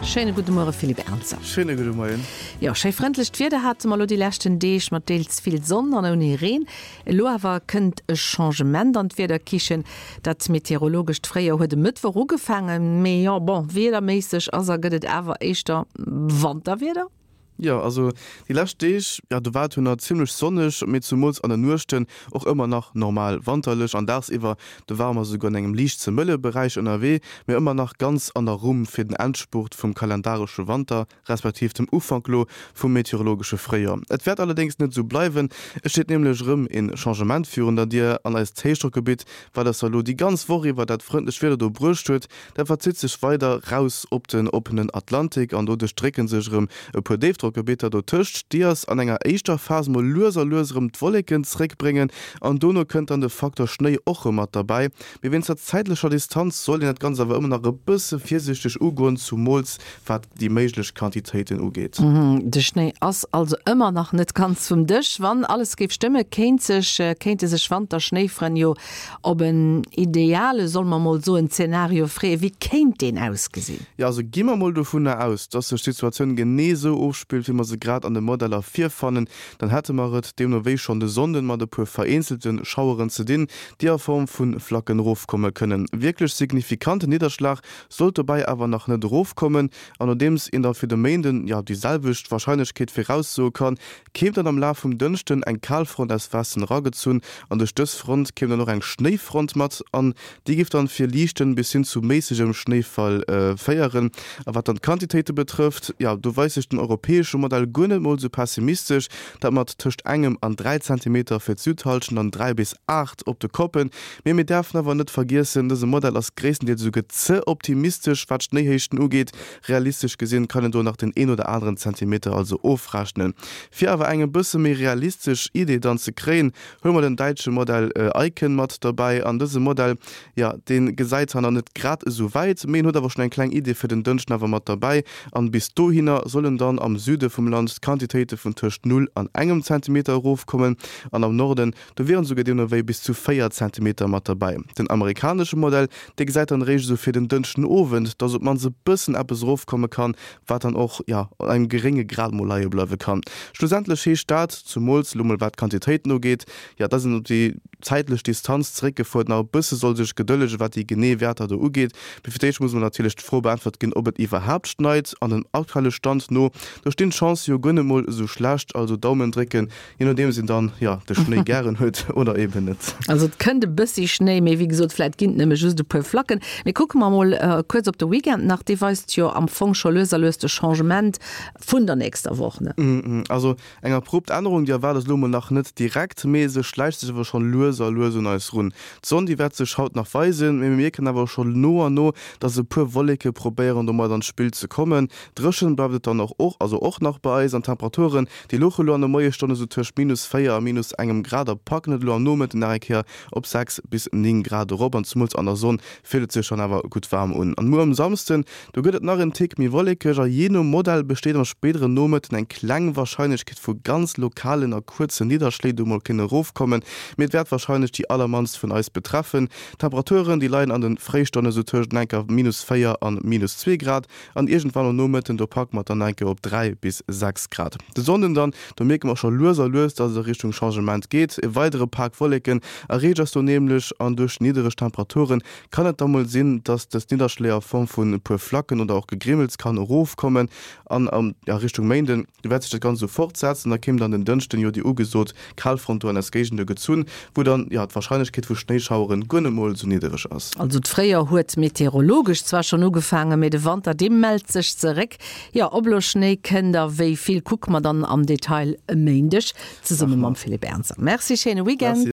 Schéine gudde Muere Philippe Ernzer. Schéine gudde Moien. Jo, schéi frëndlecht Wieder hate mer elo déi leschten Deeg, mat deels vill Sonn an ouni Reen. Elo awer kënnt e Changement an d'Wiederkichen. Dat meteorologescht Fréijoer huet e Mëttwoch ugefaangen, mee jo, bon, wiederméisseg ass a gëtt et awer éischter Wanterwieder. Jo, also déi lescht Deeg, jo do war et jo nach zimmlech sonneg, mee zumools an den Nuechten och ëmmer nach normal wanterlech an dagsiwwer, do ware mer esouguer an engem liicht ze mëlle Beräich ënnerwee, mee ëmmer nach ganz an der Rumm fir den Endspurt vum kalendaresche Wanter, respektiv dem Ufank lo vum meteorologesche Fréijoer. Et wäert allerdéngs net esou bleiwen, et steet nämlech erëm een Changement virun der Dier an eist Héichdrockgebitt, wat eis da lo déi ganz Woch iwwer dat frëndlecht Wieder do bruecht huet, Dat verzitt sech weider raus op den oppenen Atlantik an doduerch drécke sech erëm e puer Déifdrockgebitter dotëscht, déi eis an enger éischter Phas mol lues a lues erëm d'Wolleken zréckbréngen an dono kënnt dann de Faktor Schnéi och erëm mat derbäi. Mee wéinst der zäitlecher Distanz sollt een dat Ganzt awer ëmmer nach e bësse virsiichteg ugoen, zumools wat déi méiglech Quantitéiten ugeet. De Schnéi ass also ëmmer nach net ganz vum Dësch. Wann alles géif stëmme, kéint sech kéinte sech Wanter-Schnéifrënn jo op en ideale, solle mer mol soen, Zenario freeën. Wéi kéint deen ausgesinn? Jo, also gi mer mol dovunner aus, dass sech d'Situatioun genee esou ofspillt, wéi mer se grad an de Modeller virfannen, dann hätte mer et deemno wéi schonn de Sonnden mat e puer vereenzelte Schaueren ze dinn, déi a Form vu Flacken erofkomme kënnen. Wierklech signifikante Nidderschlag sollt dobäi awer nach net erofkommen. An nodeems een da fir de Méinden, jo, déi selwecht Warscheinlechkeet viraussoe kann, kéim dann am Laf vum Dënschden eng Kalfront aus Westen eragezunn an duerch dës Front kéim dann och eng Schnéifront mat an déi géif dann fir liichten bis hin zu méissegem Schnéifall féieren. A wat dann d'Quantitéite betrëfft, jo, do weist sech den europäesche Modell guer net mol sou pessimistesch, dat mat tëscht engem an 3 Zentimeter fir d'Südhallschent an 3 bis 8 op de Koppen. Mee mir däerfen awer net vergiessen, dëse Modell ass gréisstendeels esouguer ze optimistesch wat d'Schnéihéichten ugeet. Realistesch gesinn kann een do nach den een oder aneren Zentimeter also ofrechnen. Fir awer eng e bësse méi realistesch Idee dann ze kréien, huele mer den däitsche Modell Icon mat derbäi. An dëse Modell, jo, dee gesäit zwar nach net grad esou wäit, mee en huet awer schonn eng kleng Idee fir den Dënschden awer mat derbäi. An bis dohinner sollen dann am Süde vum Land d'Quantitéite vun tëscht null an engem Zentimeter erofkommen an am Norden Do wieren esouguer deemno wéi bis zu 4 Zentimeter mat derbäi. Den amerikanesche Modell, dee gesäit dann eréischt esou fir den Dënschden Owend, dass op d'mannst e bëssen eppes erofkomme kann, wat dann och, jo, an engem gerénge Grad mol leie bleiwe kann. Schlussendlech heescht dat, zumools elo mol wat d'Quantitéiten ugeet, jo, dass een op déi zäitlech Distanz zeréckgefuert nach e bësse soll sech gedëllege wat déi genee Wäerter do ugeet. Mee fir d'éischt muss mol natierlech d'Fro beäntwert ginn, ob et iwwerhaapt schneit. An dem aktuelle Stand no, do stinn d'Chancë jo guer net mol esou schlecht. Also Daumen drécken, Je nodeems een dann, jo, de Schnéi gären huet oder eben net. Also et kënnt e bëssi Schnéi, mee wéi gesot, vläit ginn et nëmme just e puer Flacken. Mee kucke mer mol kuerz op de Weekend nach, dee weist jo am Fong scho lues a lues de Changement vun der nächster Woch, ne? Also eng abrupt Ännerung, déi erwaart ass elo mol nach net direkt, mee se schläicht sech awer schonn lues a lues un eis run. D'Sonn, déi wäert sech haut nach weisen, mee mir mierken awer scho no an no, dass e puer Wolleke probéieren domat an d'Spill ze kommen. Dréchen bleift et dann och, also och nach bei eis an d'Temperaturen, Déi louche elo an de Moiesstonne sou tëscht minus 4 a minus engem Grad a packen et elo am Nomëtten nach eng Kéier op 6 bis 9 Grad erop an zumools an der Sonn fillt et sech dann awer gutt waarm un. An muer um Samsden, do gëtt et nach en Tick méi wollekeg a jee nom Modell besteet am spéidere Nomëtten eng kleng Warscheinlechkeet vu ganz lokalen a kuerzen Nidderschléi, déi mol kënnen erofkommen, mee et wäert warscheinlech déi allermannst vun eis betreffen. D'Temperaturen, déi leien an de Fréistonne sou tëscht enker minus 4 an minus 2 Grad. An iergendwann am Nomëtten, do packe mer et dann enke op 3 bis 6 Grad. De Sonnden dann, do mierke mer scho lues a lues, dass et a Richtung Changement geet. E weidere Pak Wolleken erreecht eis do nämlech an duerch niddereg Temperaturen kann et da mol sinn, dass dës Nidderschléi a Form vun e puer Flacken oder och Gegrimmels kann erofkommen. An a Richtung Méinden, do wäert sech dat Ganzt esou fortsetzen. Da kéim dann den Dënschden jo déi ugesot Kalfront do an eis Géigende gezunn, wou dann, jo, d'Warscheinlechkeet vu Schnéischaueren guer net mol esou niddereg ass. Also d'Fréijoer huet meteorologesch zwar schonn ugefaangen, mee de Wanter, dee mellt sech zeréck. Jo, ob elo Schnéi kënnt a wéi vill, kucke mer dann am Detail e Méindeg zesumme mam Philippe Ernzer. Merci, schéine Weekend.